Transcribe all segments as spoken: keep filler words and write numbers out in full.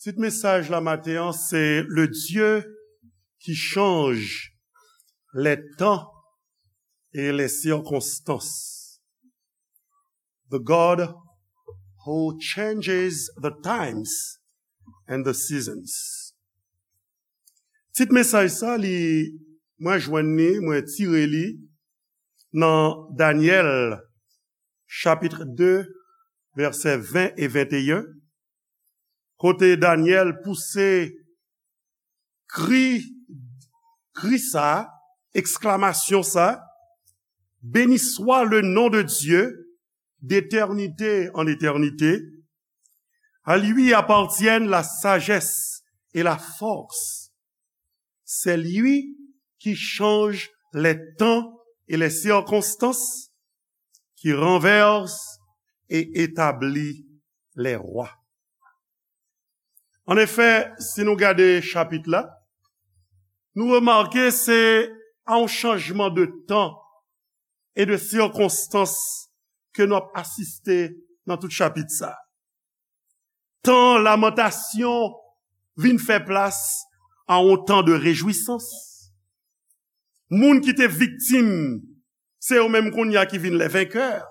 Tit mesaj la maten an, se Le Dieu qui change les temps et les circonstances. The God who changes the times and the seasons. Tit mesaj sa, li, mwen jwenn li, mwen tire li nan Danyèl, chapit de, vèsè ven e venteyen, kote Danyèl pouse kri, kri sa, eksklamasyon sa, Béni soit le nom de Dieu, d'éternité en éternité. À lui appartiennent la sagesse et la force. C'est lui qui change les temps et les circonstances, qui renverse et établit les rois. An efè, si nou gade chapit la, nou remake se a yon chanjman de tan e de sikonstans ke nou ap asiste nan tout chapit sa. Tan lamantasyon vin fè plas a yon tan de rejwisans. Moun ki te viktim, se yo menm kounye a ki vin les vainqueurs.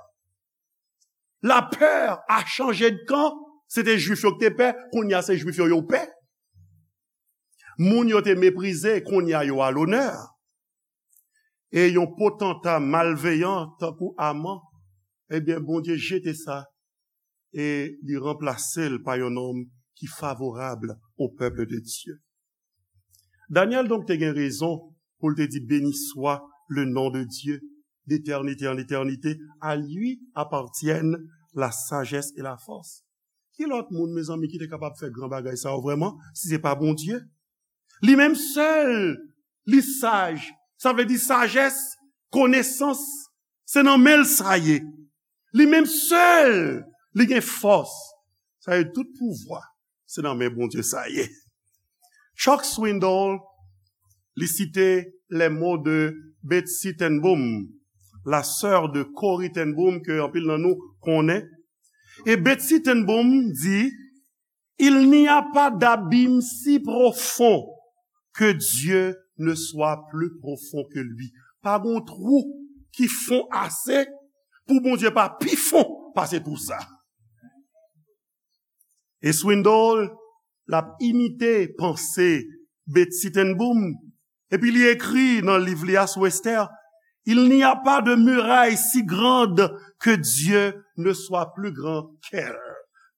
Lapè a chanje de kan. Se te Jwif yo ki te pè, kounye a se Jwif yo yo pè. Moun yo te meprize, kounye a yo a lonè. E yon potanta malveyan tankou Aman, ebyen, Bondye jete sa e li ranplase l pa yon nonm ki favorab au peuple de Dieu. Danyèl donk te gen rezon pou l te di, Béni soit le nom de Dieu, d'éternité en éternité, à lui appartiennent la sagesse et la force. Ki lòt moun, mezanmi, ki te kapab fè gran bagay sa yo vrèman, si se pa Bondye? Li menm sèl, li saj. Sa vle di sajès, konesans, se nan men l sa ye. Li menm sèl, li gen fòs. Sa ye tout pouvwa, se nan men Bondye sa ye. Chuck Swindoll, li site les mots de Betsy Ten Boom, la sœur de Corrie Ten Boom, ke anpil nan nou konnen. E Betsy Ten Boom di, Il n'y a pas d'abîme si profond que Dieu ne soit plus profond que lui. Pa gen twou ki fon ase pou Bondye pa pi fon pase twou sa. E Swindoll, l ap imite panse Betsy Ten Boom, epi li ekri nan liv li a sou Esther, Il n'y a pas de muraille si grande que Dieu ne soit plus grand qu'elle.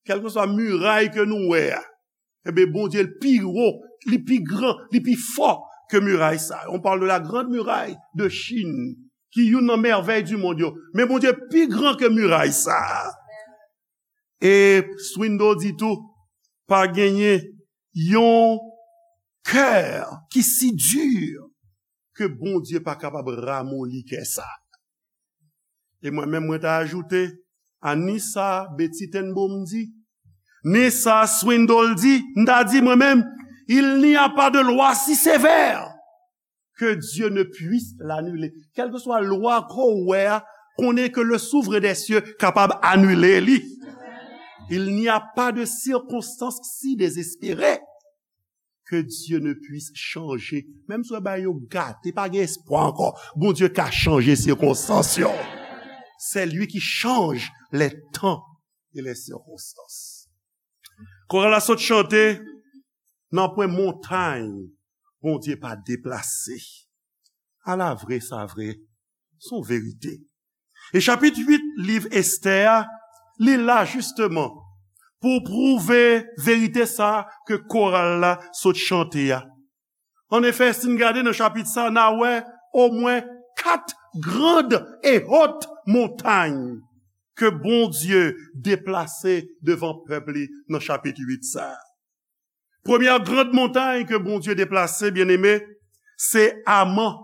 Kèlkeswa miray ke nou wè a, ebyen, Bondye l pi wo, li pi gran, li pi fò ke miray sa. On parle de la grande muraille de Chine, ki youn nan mèvèy di mond yo. Men Bondye pi gran ke miray sa. E Swindoll di tou, pa genyen yon kè ki si di ke Bondye pa kapab ramoli kè sa. E mwen menm, mwen ta ajoute a ni sa Betsy Ten Boom di, ni sa Swindoll di, m ta di mwen menm, il n'y a pas de loi si sévère que Dieu ne puisse l'annuler. Kèlkeswa lwa ke w wè a, konnen ke le Souverain des cieux kapab anile li. Il n'y a pas de circonstance si désespérée que Dieu ne puisse changer. Menm si w wè bagay yo gate, pa gen espwa ankò, Bondye ka chanje sikonstans yo. C'est lui qui change les temps et les circonstances. Koral la sot chante, nan pwen montay Bondye pa deplase. Ala vre sa vre, se yon verite. E chapit uit liv Estè a, li la jisteman pou pwouve verite sa ke koral la sot chante a. An efè, si n gade nan chapit sa, n a wè omwen kat grand et haute montagne ke Bondye deplase devan pèp li nan chapit uit sa. Premyè grand montay ke Bondye deplase, byeneme, se Aman,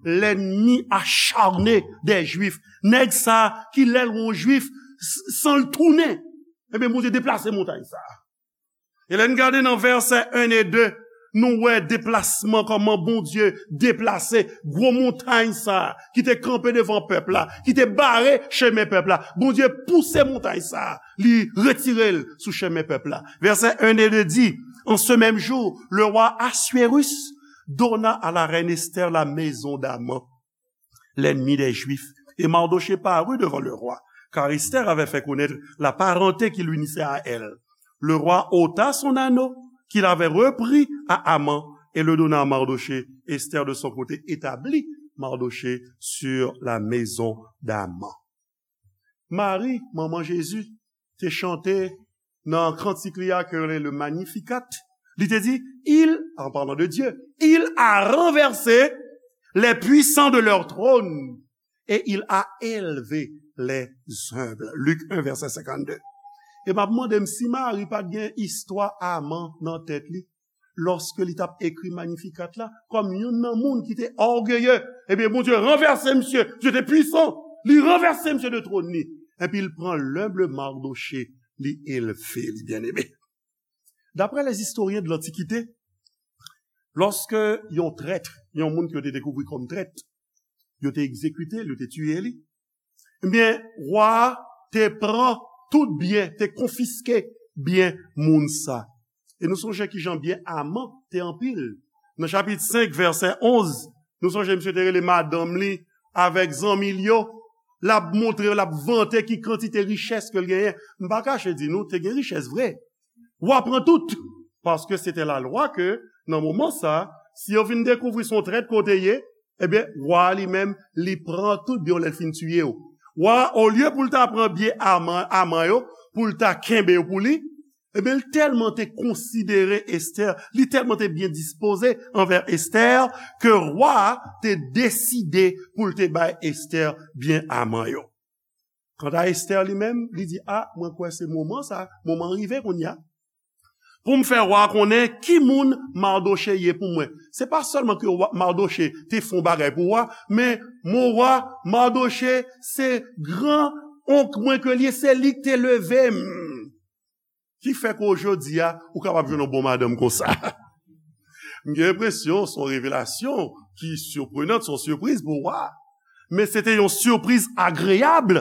lènmi acharne dè Jwif. Nèg sa ki lè l wè yon Jwif, s-, san l tounen. Ebyen, Bondye deplase montay sa. E lè n gade nan vèsè en e de, nou wè deplasman, kòman Bondye deplase gwo montay sa ki te kanpe devan pèp la, ki te bare chemen pèp la. Bondye pouse montay sa, li retire l sou chemen pèp la. Vèsè en e de di, En ce même jour, le roi Assuérus donna à la reine Esther la maison d'Aman, l'ennemi des Juifs. Et Mardochée parut devant le roi, car Esther avait fait connaître la parenté qui l'unissait à elle. Le roi ôta son anneau qu'il avait repris à Aman et le donna à Mardochée. Esther, de son côté, établit Mardochée sur la maison d'Aman. Mari, manman Jezi, te chante nan kantik li a, ke yo rele le Magnificat. Li te di, il, en parlant de Dieu, il a renversé les puissants de leur trône et il a élevé les humbles. Luc un, verset cinquante-deux. E m ap mande m si Mari pa t gen istwa Aman nan tèt li, lòske li t ap ekri Magnificat la, kòm youn nan moun ki te ògeye. Ebyen, Bondye ranvèse misye, Dieu était puissant, li ranvèse misye de twòn li. Epi l pran lenb Mardochée, li elve li, byeneme. D'après les historiens de l'Antiquité, lòske yon trèt, yon moun ke yo te dekouvri kòm trèt, yo te egzekite l, yo te tiye li, ebyen, wa a te pran tout byen, te konfiske byen moun sa. E nou sonje kijan byen Aman te anpil. Nan chapit senk, vèsè onz, nou sonje misye te rele madanm li avèk zanmi l yo. L ap montre, l ap vante ki kantite richès ke l genyen. M pa kache di nou, te gen richès vre. Wa pran tout. Paske se te lalwa ke, nan moman sa, si yo vin dekouvri se yon trèt ke w te ye, ebyen, wa a li menm, li pran tout byen w lè l fin tiye w. Wa a, olye pou l ta pran byen Aman, Aman yo, pou l ta kenbe yo pou li, ebyen, l tèlman te konsidere Esther, li tèlman te byen dispoze anvè Esther, ke wa a te deside pou l te bay Esther byen Aman yo. Kanta Esther li menm, li di, a, mwen kwè se moman sa, moman an rive kounye a. Pou m fè wa a konnen ki moun Mardochée ye pou mwen. Se pa sèlman ke wa, Mardochée te fè yon bagay pou wa, men mon wa, Mardochée se gran onk mwen ke l ye, se li k te leve m. Ki fè ke jodi a, ou kapab jwenn yon bon madanm konsa. M gen enpresyon, se yon revelasyon ki siprenan, se yon sipriz pou wa. Men se te yon sipriz agreyab,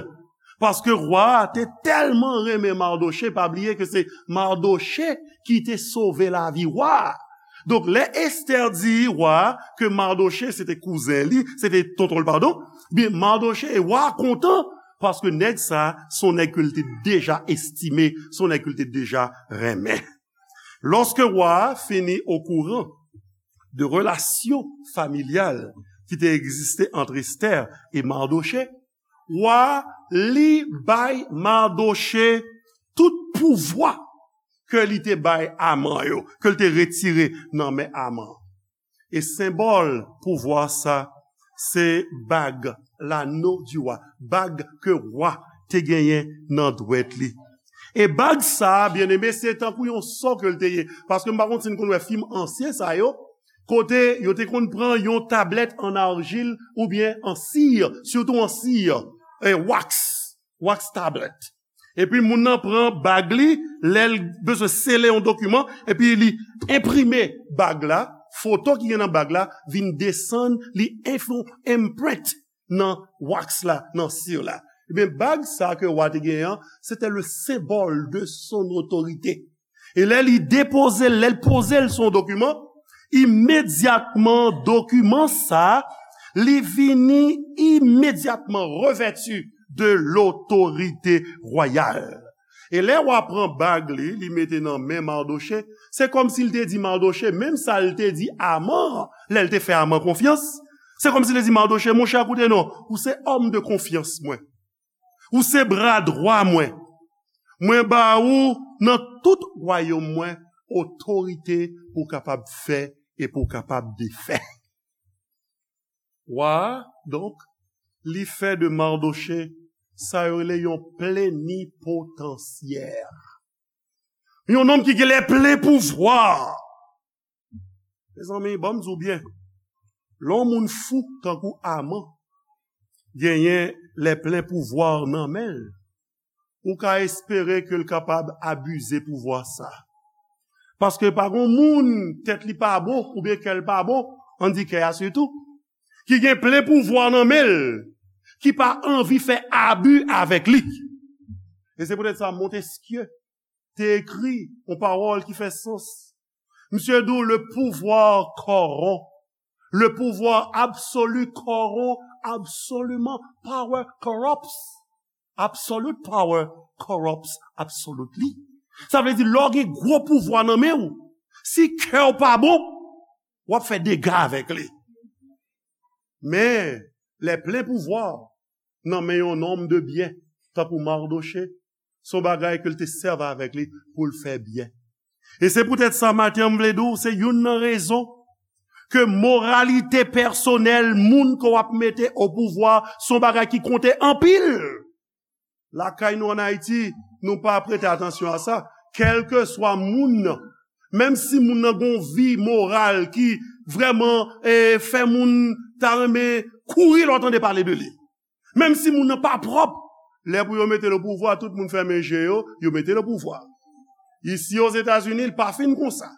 paske wa a te tèlman renmen Mardochée, pa bliye ke se Mardochée ki te sove lavi wa a. Donk, lè Esther di wa a ke Mardochée se te kouzen li, se te tonton l, padon, byen, Mardochée e wa a kontan, paske nèg sa, se yon nèg ke l te deja estime, se yon nèg ke l te deja renmen. Lòske wa a fini okouran de relasyon familyal ki te egziste ant Esther e Mardochée, wa a, li bay Mardochée tout pouvwa ke li te bay Aman yo, ke l te retire nan men Aman. E senbòl pouvwa sa, se bag, l'anneau du roi, bag ke wa te genyen nan dwèt li. E bag sa, byeneme, se tankou yon sò ke l te ye. Paske m pa konn si n konn wè fim ansyen sa yo, kote yo te konn pran yon tablèt an arjil oubyen an sir, sitou an sir, e wax, wax tablet. Epi moun nan pran bag li, lè l bezwen sele yon dokiman, epi li enprime bag la, foto ki gen nan bag la vin desann, li enfo, imprint nan wax la, nan sir la. Ebyen, bag sa ke wa te genyen an, se te le symbole de son autorité. E lè li depoze l, lè l poze l sou yon dokiman, imedyatman, dokiman sa, li vini imedyatman revèti de l'autorité royale. E lè wa pran bag li, li mete nan men Mardochée, se kòmsi l te di Mardochée, menm sa l te di Aman, lè l te fè Aman konfyans, se kòmsi l te di Mardochée, monchè, koute non, ou se òm de konfyans mwen. Ou se bra dwa mwen. Mwen ba ou nan tout wayòm mwen otorite pou w kapab fè e pou w kapab defè. Wa a, donk, li fè de Mardochée sa yo rele yon plenipotansyè. Yon nonm ki gen lè plen pouvwa. Mezanmi, ban m di w byen, lè yon moun fou tankou Aman genyen lè plen pouvwa nan men l, ou ka espere ke l kapab abize pouvwa sa. Paske pa gon moun tèt li pa bon oubyen kè l pa bon, ann di kè a sitou, ki gen plen pouvwa nan men l, ki pa anvi fè abi avèk li. E se poutèt sa Montesquieu te ekri yon pawòl ki fè sans. Misye di w, le pouvoir corrompt. Le pouvoir absolu corrompt absolument. Power corrupts. Absolute power corrupts absolutely. Sa vle di, lè w gen gwo pouvwa nan men w, si kè w pa bon, w ap fè dega avèk li. Men, lè plen pouvwa nan men yon nonm de byen, tankou Mardochée, se yon bagay ke l te sèvi avèk li pou l fè byen. E se poutèt sa, maten an, m vle di w, se youn nan rezon ke moralite pèsonèl moun ke w ap mete o pouvwa se yon bagay ki konte anpil. Lakay nou ann Ayiti, nou pa prete atansyon a sa. Kèlkeswa moun nan, menm si moun nan gen yon vi moral ki vrèman eh, fè moun ta renmen kouri lè w tande pale de li. Menm si moun nan pa pwòp, lè pou yo mete l o pouvwa, tout moun fèmen je yo, yo mete l o pouvwa. Isi Ozetazini, l pa fin konsa.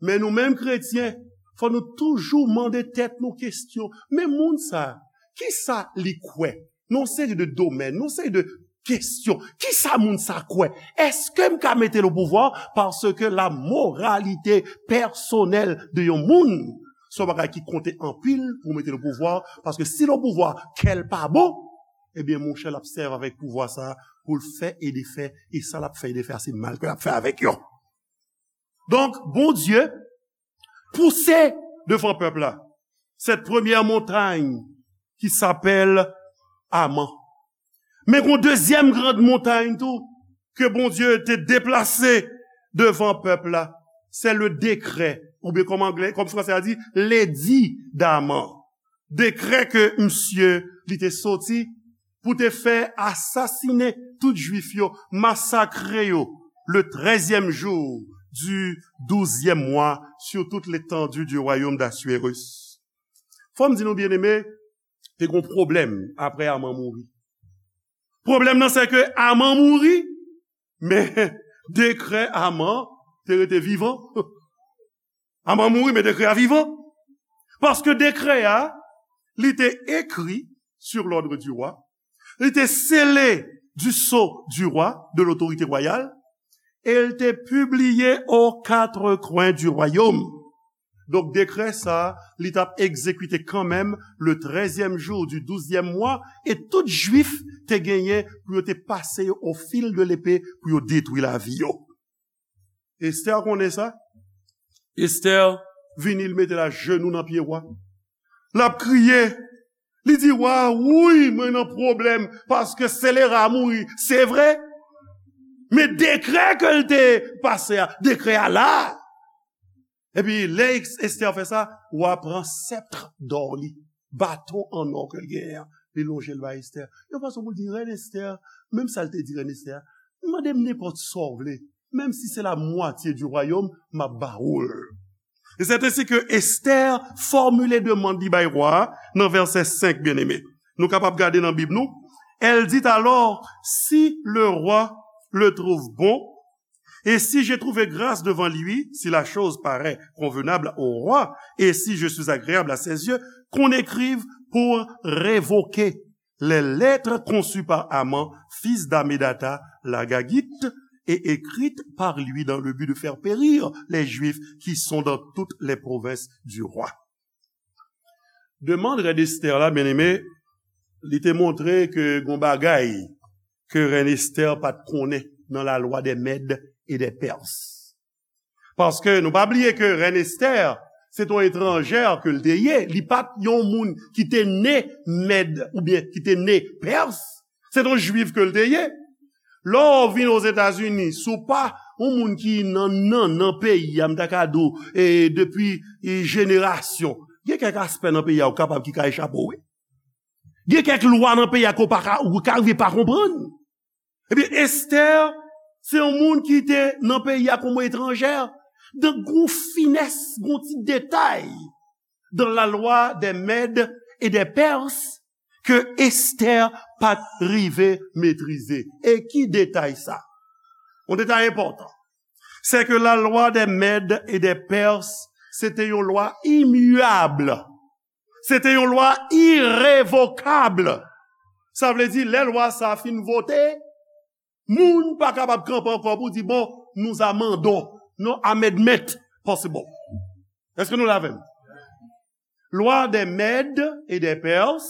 Men nou menm kretyen, fò nou toujou mande tèt nou kesyon. Men moun sa, kisa li kwè? Nan yon seri de domèn, nan yon seri de kesyon. Kisa moun sa kwè? Èske m ka mete l o pouvwa? Paske la moralite pèsonèl de yon moun, se yon bagay ki konte anpil pou mete l o pouvwa. Paske si l o pouvwa, kè l pa bon, ebyen, monchè, l ap sèvi avèk pouvwa sa pou l fè e defè, e sa l ap fè e defè a, se mal ke l ap fè avèk yo. Donk, Bondye pouse devan pèp la cette première montagne qui s'appelle Aman. Men gon dezyèm gran montay tou ke Bondye te deplase devan pèp la, se le décret, oubyen kòm anglè, kòm fransè a di, l'édit d'Aman. Dekrè ke misye li te soti pou te fè asasinen tout Jwif yo, masakre yo, le treizième jour du douzième mois sur toute l'étendue du royaume d'Assuérus. Fò m di nou, byeneme, te gon pwoblèm apre Aman mouri. Pwoblèm nan, se ke Aman mouri, men dekrè Aman te rete vivan. Aman mouri, men dekrè a vivan. Paske dekrè a, li te ekri sur l'ordre du roi, li te sele du sceau du roi, de l'autorité royale, e l te pibliye aux quatre coins du royaume. Donk, dekrè sa, li t ap egzekite kanmenm le treizième jour du douzième mois, e tout Jwif te genyen pou yo te pase yo au fil de l'épée pou yo detwi lavi yo. Estè konnen sa. Estè vini, l mete l ajenou nan pye wa. L ap kriye. Li di, "Wa, wi, mwen nan pwoblèm, paske selera mouri, se vre. Men dekrè ke l te pase a, dekrè a la." Epi, lè Estè fè sa, wa pran sèpt dò li, baton an nò ke l genyen an, li lonje l bay Estè. Yon fason pou l di, "Rèn Estè, menm sa l te di rèn Estè a, mande m nenpòt sa w vle, menm si se la mwatye di wayòm, m ap ba ou l." E c'est ainsi que Esther formule demande li bay wa a nan vèsè senk, byeneme. Nou kapab gade nan Bib nou. Elle dit alors, si le roi le trouve bon, et si j'ai trouvé grâce devant lui, si la chose paraît convenable au roi, et si je suis agréable à ses yeux, qu'on écrive pour révoquer les lettres conçues par Aman, fils d'Hamédatha l'Agagite, et écrites par lui dans le but de faire périr les Juifs qui sont dans toutes les provinces du roi. Demann rèn Esther la, byeneme, li te montre ke gon bagay ke rèn Esther pa t konnen nan lalwa dè Mèd e dè Pès. Paske nou pa bliye ke rèn Esther, se t on etranjè ke l te ye. Li pa t yon moun ki te ne Mèd oubyen ki te ne Pès. Se t on jwif ke l te ye. Lè w vin Ozetazini, si w pa yon moun ki nan, nan, nan peyi a, m ta ka di w, e, depi, e, jenerasyon, gen kèk aspè nan peyi a ou kapab ki ka echape w, wi. Gen kèk lwa nan peyi a ke w pa ka, ou ka rive pa konprann. Ebyen, Esther, se yon moun ki te nan peyi a kòm etranjè. Donk, gon finès, gon ti detay dans la loi des Mèdes et des Perses ke Esther pa t rive metrize. E ki detay sa? Yon detay enpòtan. Se ke la loi des Mèdes et des Perses, se te yon lwa imyab. Se te yon lwa irevokab. Sa vle di, lè lwa sa a fin vote, moun pa kapab kanpe ankò pou di, "Bon, nous amendons." Non, amendment. possible. Èske nou la avè m? Lwa dè Mèd e dè Pèrs,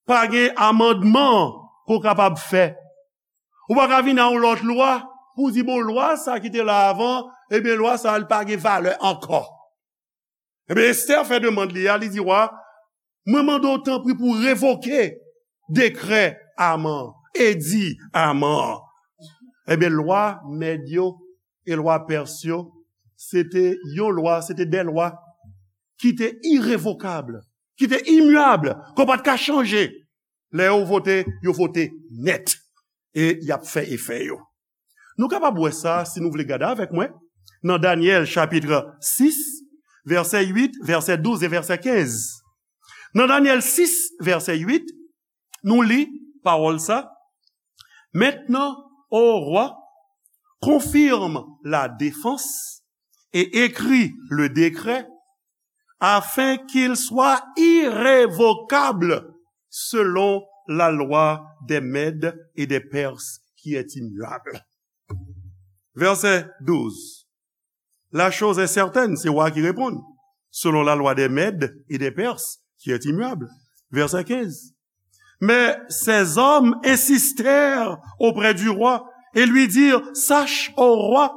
pa gen amandman ke w kapab fè. Ou pa ka vin a yon lòt lwa pou w di, bon, lwa sa ki te la avan, ebyen, lwa sa, li pa gen valè ankò. Ebyen, Estè fè demann li a, li di wa, mwen mande w tanpri pou w revoke dekrè Aman, edi Aman. Ebyen, lwa Mèd yo e lwa Pèrs yo, se te yon lwa, se te de lwa ki te irevokab, ki te imyab, ke w pa t ka chanje. Lè yo vote, yo vote nèt. E y ap fè efè yo. Nou kapab wè sa, si nou vle gade avèk mwen, nan Danyèl chapit sis, vèsè uit, vèsè douz e vèsè kenz. Nan Danyèl sis, vèsè uit, nou li pawòl sa, Maintenant, ô roi, confirme la défense et écris le décret afin qu'il soit irrévocable selon la loi des Mèdes et des Perses qui est immuable. Vèsè douz. La chose est certaine, se wa ki reponn, selon la loi des Mèdes et des Perses qui est immuable. Vèsè kenz. Mais ces hommes insistèrent auprès du roi et lui dirent, sache, ô roi,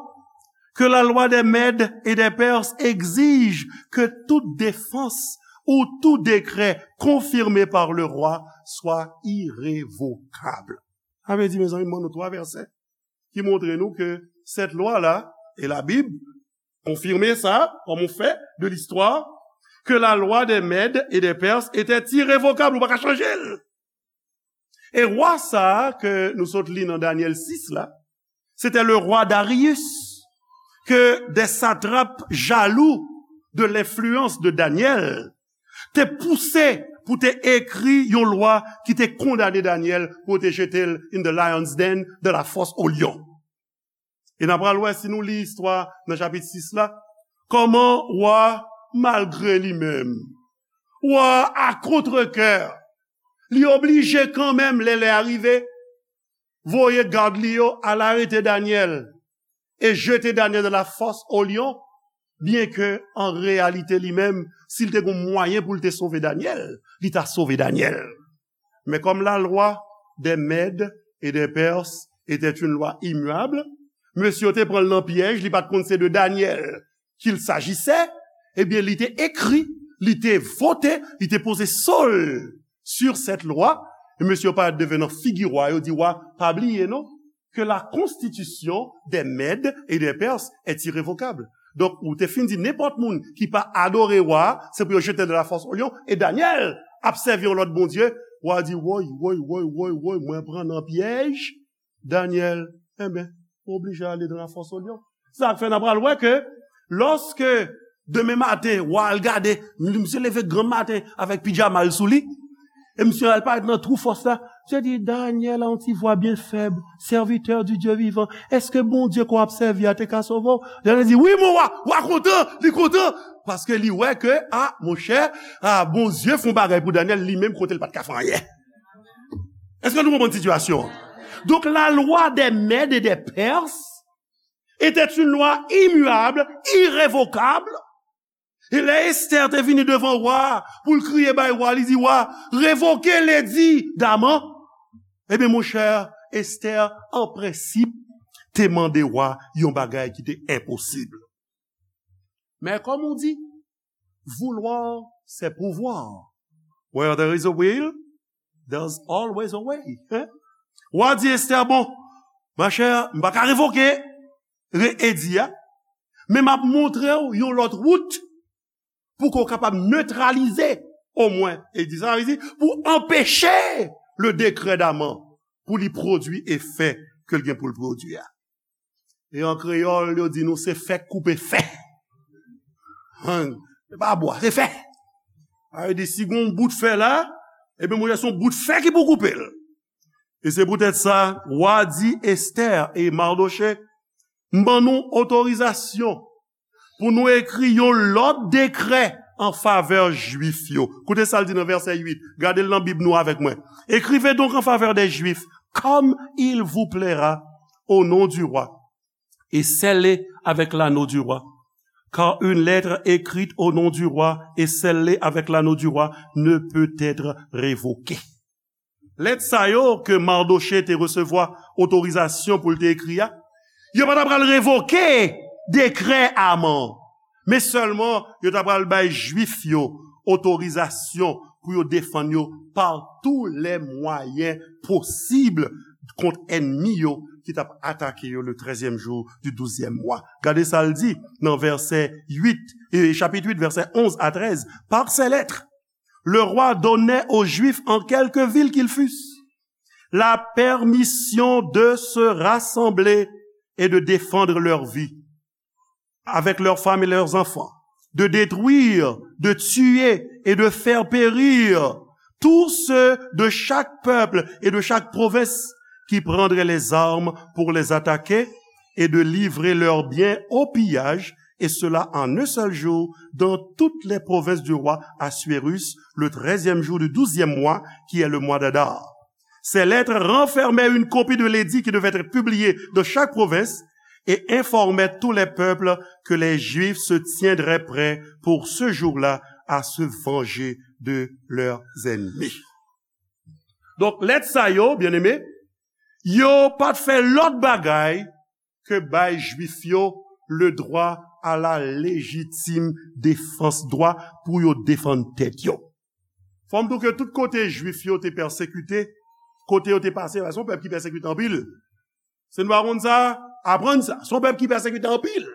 que la loi des Mèdes et des Perses exige que toute défense ou tout décret confirmé par le roi soit irrévocable. Sa vle di, mezanmi, m ban nou twa vèsè ki montre nou ke cette loi-là, et la Bible confirme ça, comme on fait de l'histoire, que la loi des Mèdes et des Perses était irrévocable, ou pa ka chanje l. E wa sa a ke nou sot li nan Danyèl sis la, se te le rwa Darius, ke des satrapes jaloux de l'influence de Daniel te pouse pou te ekri yon lwa ki te kondane Danyèl pou te jete l in the lion's den, de la fosse au lion. E n a pral wè, si nou li istwa nan chapit sis la, kòman wa, malgre li menm, wa a kontrekè, li oblije kanmenm, lè lè a rive, voye gad li yo al arete Danyèl e jete Danyèl de la fosse au lion, byenke an reyalite li menm, si l te gen mwayen pou l te sove Danyèl, li ta sove Danyèl. Men kòm la lwa dè Mèd e dè Pèrs était une loi immuable, mesye yo te pran l nan pyèj, li pa t konn se de Danyèl qu'il s'agissait, ebyen, li te ekri, li te vote, li te poze so l sur cette loi, e mesye yo parèt devan nan figi wa, yo di, wa, pa bliye non, que la constitution des Mèdes et des Perses est irrévocable. Donk, ou te fin di nenpòt moun ki pa adore wa, se pou yo jete de la fosse au lion, e Danyèl ap sèvi yon lòt bondye, wa di, woy, woy, woy, woy, woy, mwen pran nan pyèj, Danyèl, enben, ou oblije ale de la fosse au lion. Sa k fè n a pral wè ke lòske demen maten, wa al gade, misye leve granm maten avèk pijama l sou li, e misye al parèt nan twou fòs la, misye di, Danyèl, a yon ti vwa byen fèb, serviteur du Dieu vivant, èske Bondye ke w ap sèvi a te ka sove w? Danyèl di, wi, mon wa, wa kontan, li kontan, paske li wè ke, a, monchè, a, Bondye fè yon bagay pou Danyèl, li menm kote l pa t ka fè anyen. Èske nou konprann sitiyasyon an? Donk, la lwa dè Mèd e dè Pèrs était une loi immuable, irrévocable. E lè Estè te vini devan wa a pou l kriye bay wa a, li di, wa, revoke ledi Daman. Ebyen, monchè, Estè, an prensip, te mande wa a yon bagay ki te enposib. Men kòm ou di, vouloir, c'est pouvoir. Where there is a will, there's always a way. Hein? Wa di Estè, bon, machè, m pa ka revoke re- edi a, men m ap montre w yon lòt wout pou ke w kapab netralize, omwen, edi sa, sa vle di, pou anpeche le décret Daman pou li pwodui efè ke l gen pou l pwodui a. E an kreyòl, yo di nou se fè k koupe fè. Hein, se pa bwa, se fè. Sa vle di, si gen yon bout fè la, ebyen, monchè, se yon bout fè ki pou koupe l. E se poutèt sa, wa di Estè e Mardochè, m ban nou otorizasyon pou nou ekri yon lòt dekrè an favè Jwif yo. Koute sa l di nan vèsè uit. Gade l nan Bib nou avèk mwen. Écrivez donc en faveur des Juifs, comme il vous plaira, au nom du roi, et scellez avec l'anneau du roi, car une lettre écrite au nom du roi et scellée avec l'anneau du roi ne peut être révoquée. Lèt sa yo ke Mardochée te resevwa otorizasyon pou l te ekri a, yo pa ta pral revoke dekrè Aman, men sèlman yo ta pral bay Jwif yo otorizasyon pou yo defann yo par tous les moyens possibles kont ènmi yo ki t ap atake yo le treizième jour du douzième mois. Gade sa l di nan vèsè uit, e chapit uit, vèsè onz a trèz. Par ces lettres, le roi donnait aux Juifs en quelque ville qu'ils fussent la permission de se rassembler et de défendre leur vie avec leurs femmes et leurs enfants, de détruire, de tuer et de faire périr tous ceux de chaque peuple et de chaque province qui prendraient les armes pour les attaquer et de livrer leurs biens au pillage, et cela en un seul jour dans toutes les provinces du roi Assuérus, le treizième jour du douzième mois, qui est le mois d'Adar. Ces lettres renfermaient une copie de l'édit qui devait être publié dans chaque province et informaient tous les peuples que les Juifs se tiendraient prêts pour ce jour-là à se venger de leurs ennemis. Donk, lèt sa yo, byeneme, yo pa t fè lòt bagay ke bay Jwif yo le droit à la légitime défense, dwa pou yo defann tèt yo. Fò m di w ke tout kote Jwif yo te pèsekite, kote yo te pase, se yon pèp ki pèsekite anpil. Si nou pa konn sa, aprann sa. Se yon pèp ki pèsekite anpil.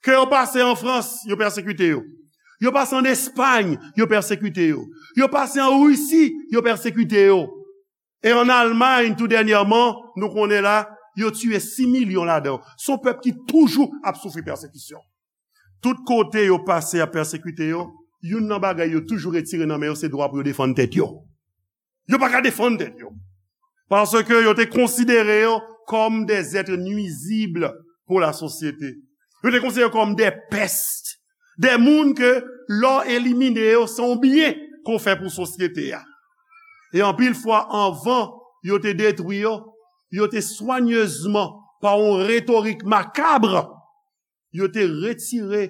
Ke yo pase an Frans, yo pèsekite yo. Yo pase an Espay, yo pèsekite yo. Yo pase an Risi, yo pèsekite yo. E an Almay, tou dènyèman, nou konnen la, yo tiye sis milyon ladan. Se yon pèp ki toujou ap soufri pèsekisyon. Tout kote yo pase ap pèsekite yo, youn nan bagay yo toujou retire nan men yo, se dwa pou yo defann tèt yo. Yo pa ka defann tèt yo. Paske yo te konsidere yo kòm des êtres nuisibles pour la société. Yo te konsidere yo kòm des pestes. Des moun ke lè w elimine yo, se yon byen ke w fè pou sosyete a. E anpil fwa, anvan yo te detwi yo, yo te swanyezman, pa yon retorik makab, yo te retire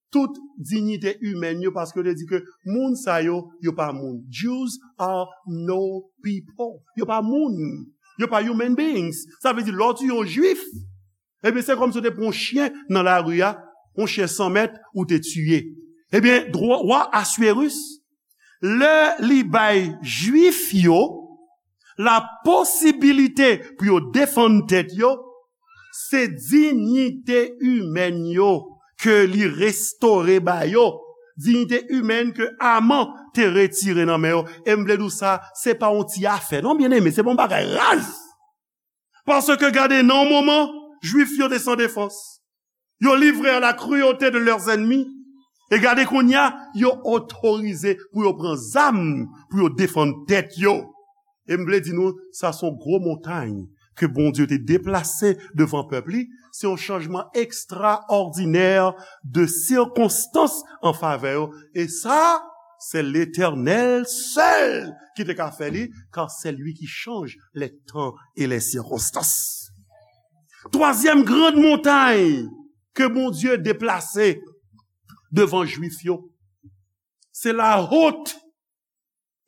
tout diyite imèn yo, paske yo te di ke moun sa yo, yo pa moun. Jews are no people. Yo pa moun. Yo pa human beings. Sa vle di, lè w tiye yon Jwif, ebyen, se kòmsi w te pran yon chen nan lari a, yon chen san mèt, ou te tiye. Ebyen, dwa, wa Assuérus, lè li bay Jwif yo la posibilite pou yo defann tèt yo, se diyite imèn yo ke li restore ba yo, diyite imèn ke Aman te retire nan men yo. E m vle di w sa, se pa yon ti afè, non, byeneme, se pa yon bagay raz. Paske gade, nan yon moman, Jwif yo te san defans. Yo livre à la cruauté de leurs ennemis. E gade kounye a, yo otorize pou yo pran zam, pou yo defann tèt yo. E m vle di nou, sa se yon gwo montay ke Bondye te deplase devan pèp li. Se yon chanjman ekstraòdinè de sikonstans an favè yo. E sa, se Letènèl sèl ki te ka fè li, car c'est lui qui change les temps et les circonstances. Twazyèm gran montay ke Bondye deplase devan Jwif yo, se la honte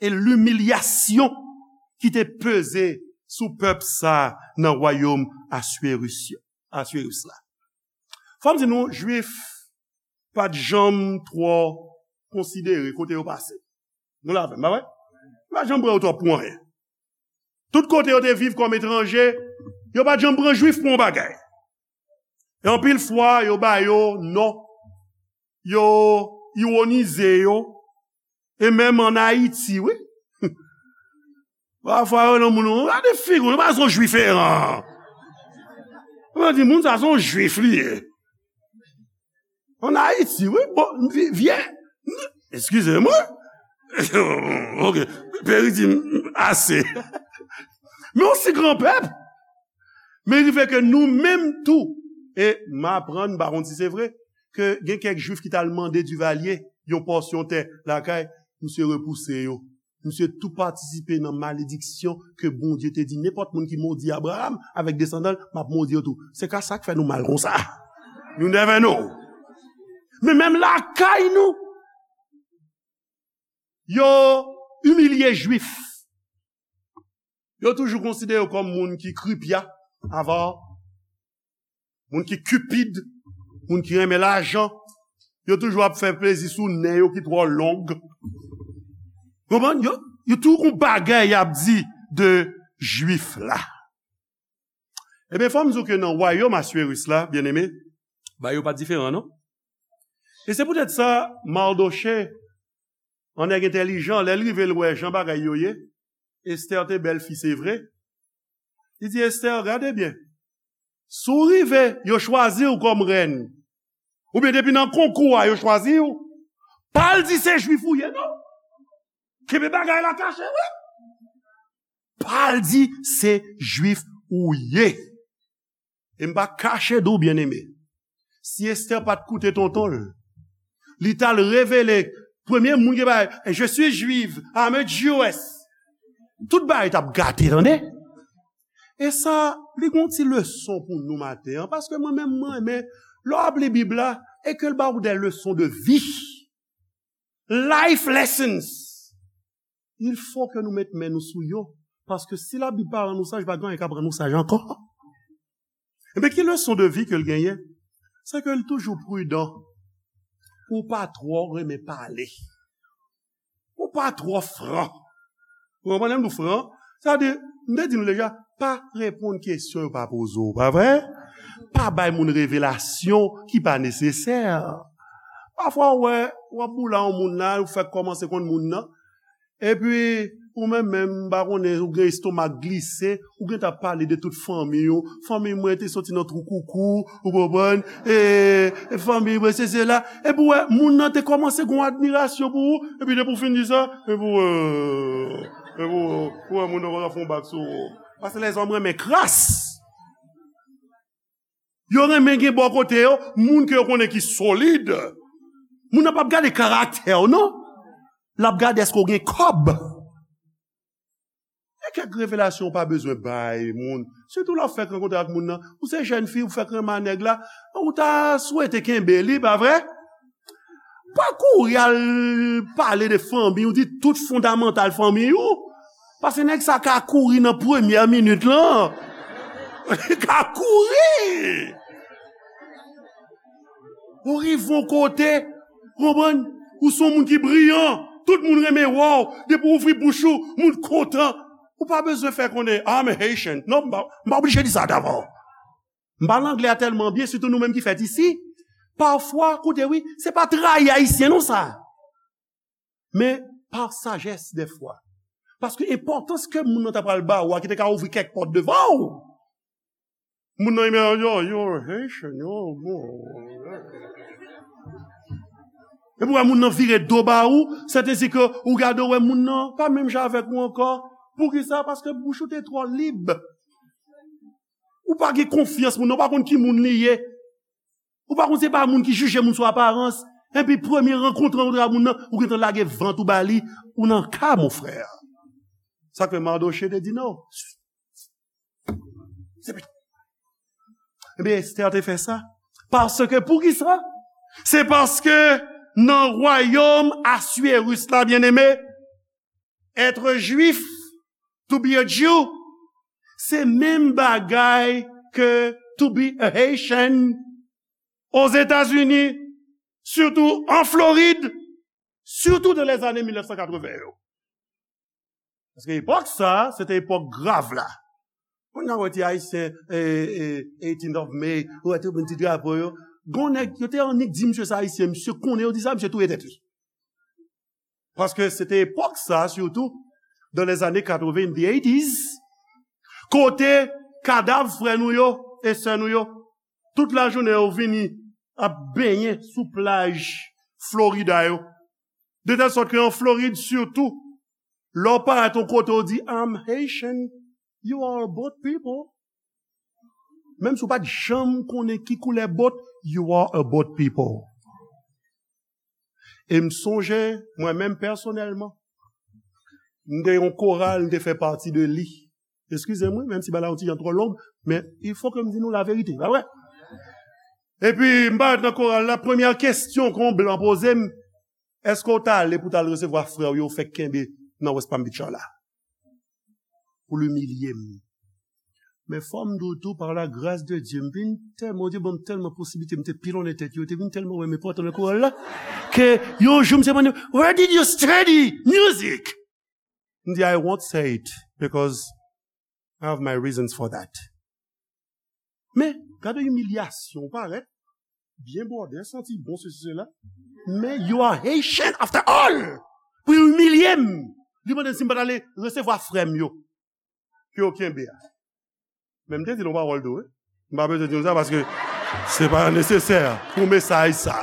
et l'humiliation ki te peze sou pèp sa nan wayòm Assuérus yo, Assuérus la. Fò m di nou, Jwif pa t janm twò konsidere kote yo pase. Nou la avè m, pa vre? Yo pa t janm pran yo twò pou anyen. Tout kote yo te viv kòm etranje, yo pa t janm pran Jwif pou yon bagay. E anpil fwa, yo ba yo non, yo iwonize yo, e menm ann Ayiti, wi. Pafwa, yo nan moun, gade figi w, nou pa se yon Jwif eran. Yo di, moun sa se yon Jwif li ye. Ann Ayiti, wi, bon, vi-, vye, eskize mwen. Ok, Peri di m ase. Men yon si gran pèp. Men rive ke nou menm tou, e m aprann, m pa konn si se vre, ke gen kèk Jwif ki t al mande Divalye yon pòsyon tè lakay, misye repouse yo. Misye tou patisipe nan malediksyon ke Bondye te di, nenpòt moun ki modi Abraram avèk desandan l, m ap modi yo tou. Se ka sa k fè nou mal konsa. You never know. Men menm lakay nou, yo imilye Jwif. Yo toujou konsidere yo kòm moun ki kripya, avè moun ki kipid, moun ki renmen lajan. Yo toujou ap fè plezi sou nen yo ki twò long. Konprann? Yo, yo toujou gon bagay y ap di de Jwif la. Ebyen, fò m di w ke nan wayòm Aswiris la, byeneme, bagay yo pa t diferan, non? E se poutèt sa, Madoche, yon nèg entèlijan, lè l rive, l wè jan bagay yo ye. Estè te bèl fi, se vre. Li di, Estè, gade byen. Si w rive, yo chwazi w kòm rèn, oubyen depi nan konkou a, yo chwazi w, pa al di se Jwif ou ye, non. Kenbe bagay la kache, wi. Pa al di se Jwif ou ye. E m pa kache di w, byeneme, si Estè pa t koute tonton l, li t al revele premye moun ki bay, "Je suis juive, I'm a Jewess." Tout bagay t ap gate, tande. E sa, li gon ti leson pou nou maten an, paske mwen menm, mwen renmen, lè w ap li Bib la, e ke l ba w de leson de vi. Life lessons. Il faut que nou met men nou sou yo. Paske si Labib pa rann nou saj, pa gen anyen k ap rann nou saj ankò. Ebyen, ki leson de vi ke l genyen? Se ke l toujou pridan pou w pa twò renmen pale. Pou w pa twò fran. Ou konprann lè m di w fran? Sa vle di, m te di nou deja, pa reponn kesyon yo pa poze w, pa vre? Pa bay moun revelasyon ki pa nesesè. Pafwa, w wè, w ap boule a yon moun la, ou fèk kòmanse konn moun nan. Epi, ou menm menm, m pa konnen, ou gen estomak glise, ou gentan ap pale de tout fanmi w. Fanmi mwen te soti nan twou koukou, ou konprann? E, e fanmi mwen, se, se la. Epi, w wè, moun nan te kòmanse gen yon admirasyon pou ou, epi depi w fin di sa, epi, w wè, epi, w wè, ou wè moun nan kòmanse ap fè yon bak sou ou. Paske lèzòm renmen kras. Yo renmen gen bò kote yo, moun ke yo konnen ki solid. Moun nan p ap gade karaktè w, non. L ap gade èske w gen kòb. E kèk revelasyon w pa bezwen bay moun. Sitou lè w fèk rankontre ak moun nan. Ou se jèn fi, ou fèk renmen a nèg la, ou ta swete kenbe li, pa vre? Pa kouri al pale de fanmi w, di tout fondamantal fanmi w. Paske nèg sa ka kouri nan premyè minit lan. Li ka kouri. Ou rive yon kote, konprann? Ou se yon moun ki briyan. Tout moun renmen wè w. Depi w ouvri bouch ou, moun kontan. Ou pa bezwen fè konnen, "I'm a Haitian." Non, m pa, m pa oblije di sa davan. M pale anglè a tèlman byen, sitou nou menm ki fèt isi. Pafwa, koute wi, se pa trayi Ayisyen non sa. Men pa sajès dèfwa. Paske enpòtans ke moun nan ta pral ba ou a ki te ka ouvri kèk pòt devan ou. Moun nan, yo, yo, Haitian, yo, bon. Epi w wè moun nan vire do ba ou, sètadi ke ou gade, w wè moun nan pa menm jan avèk ou ankò. Poukisa? Paske bouch ou te twò lib. Ou pa gen konfyans moun nan, ou pa konn ki moun li ye. Ou pa konn se pa moun ki jije moun sou aparans. Epi premye rankont ou rankontre ak moun nan, ou gentan lage vant ou ba li, ou nan ka, mon frè. Sa k fè Madoche te di non. Ebyen, Estè te fè sa. Paske, poukisa? Se paske nan wayòm Aswiris la, byeneme, être juif, to be a Jew, se menm bagay ke to be a Haitian. Ozetazini, sitou an Florid, sitou nan lèzane mil nèf san katreven yo. Paske epòk sa, se te epòk grav la. Kounye a, w wè ti Ayisyen, e, e, eighteenth of May, w wè tout moun ti drapo yo. Gon nèg, yo te annik di misye sa Ayisyen, misye konnen yo di sa, misye touye tèt li. Paske se te epòk sa, sitou, dans les années quatre-vingt, the eighties, kote kadav frè nou yo e sè nou yo, tout lajounen yo vini ap benyen sou plaj Florida yo. De tèl sòt ke an Florid, sitou, lè w parèt yon kote, w di, "I'm Haitian." You are a boat people. Menm si w pa t janm konnen ki koulè bòt, you are a boat people. E m sonje, mwen menm pèsonèlman, m te yon koral, m te fè pati de li. Eskize mwen, menm si bagay la yon ti jan twò long, men il faut que m di nou laverite, pa vre? Epi, m parèt nan koral la, premyè kesyon ke yon blan poze m, èske w t ale pou w t al resevwa frè w yo fèk kenbe nan West Palm Beach la? Pou l imilye m. Men fò m di w tou, par la grâce de Dieu, m vin tèlman, Bondye ban m tèlman posiblite, m te pilonnen tèt yo, yo te vin tèlman wè m enpòtan nan koral la, ke yon jou m te mande, "Where did you study music?" M di, "I won't say it, because I have my reasons for that." Men, gade imilyasyon, ou parèt byen bwòdè, santi bon, sesi, sela. Men, you are Haitian after all! Pou imilye m! Li mande m si m pa t ale resevwa frè m yo. Ke yo kenbe a. Men m te di l yon pawòl tou, wi. M pa bezwen di nou sa paske se pa nesesè pou mesaj sa.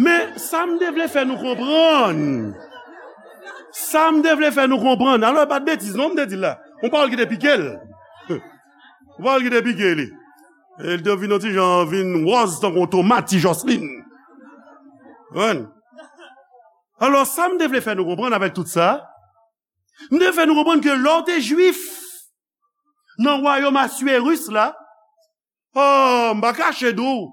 Men, sa m te vle fè nou konprann. Sa m te vle fè nou konprann. Alò, e pa t betiz, non, m te di l la. Yon pawòl ki te pike l. Yon pawòl ki te pike li. E l te vin yon ti jan, vin wòz tankou yon tomat, ti Jòslin. Konprann? Alò, sa m te vle fè nou konprann avèk tout sa, m te fè nou konprann ke lè w te jwif nan wayòm Aswérus la, oh, m pa kache di w,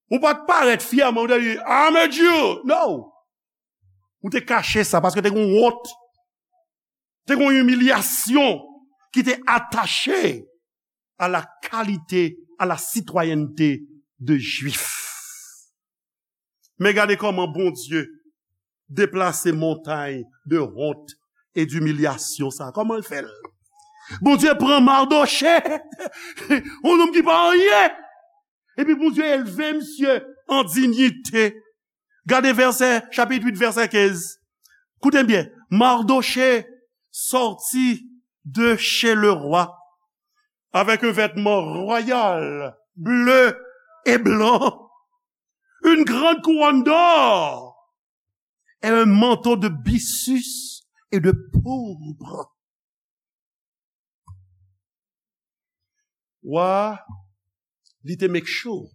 ou pa t parèt fyèman, ou te di, "I'm a Jew." No! Ou te kache sa, paske te gen yon wont, te gen yon imilyasyon ki te atache à la qualité, à la citoyenneté de Jwif. Men gade kòman Bondye deplase montay de wont e dimilyasyon sa. Kòman l fè l? Bondye pran Mardochè, yon nonm ki pa anyen, epi Bondye elve misye an dinyite. Gade vèsè, chapit uit, vèsè kenz. Koute byen. Mardochée sortit de chez le roi avec un vêtement royal, bleu et blanc, une grande couronne d'or et un manteau de byssus et de pourpre. Wa a, li te make sure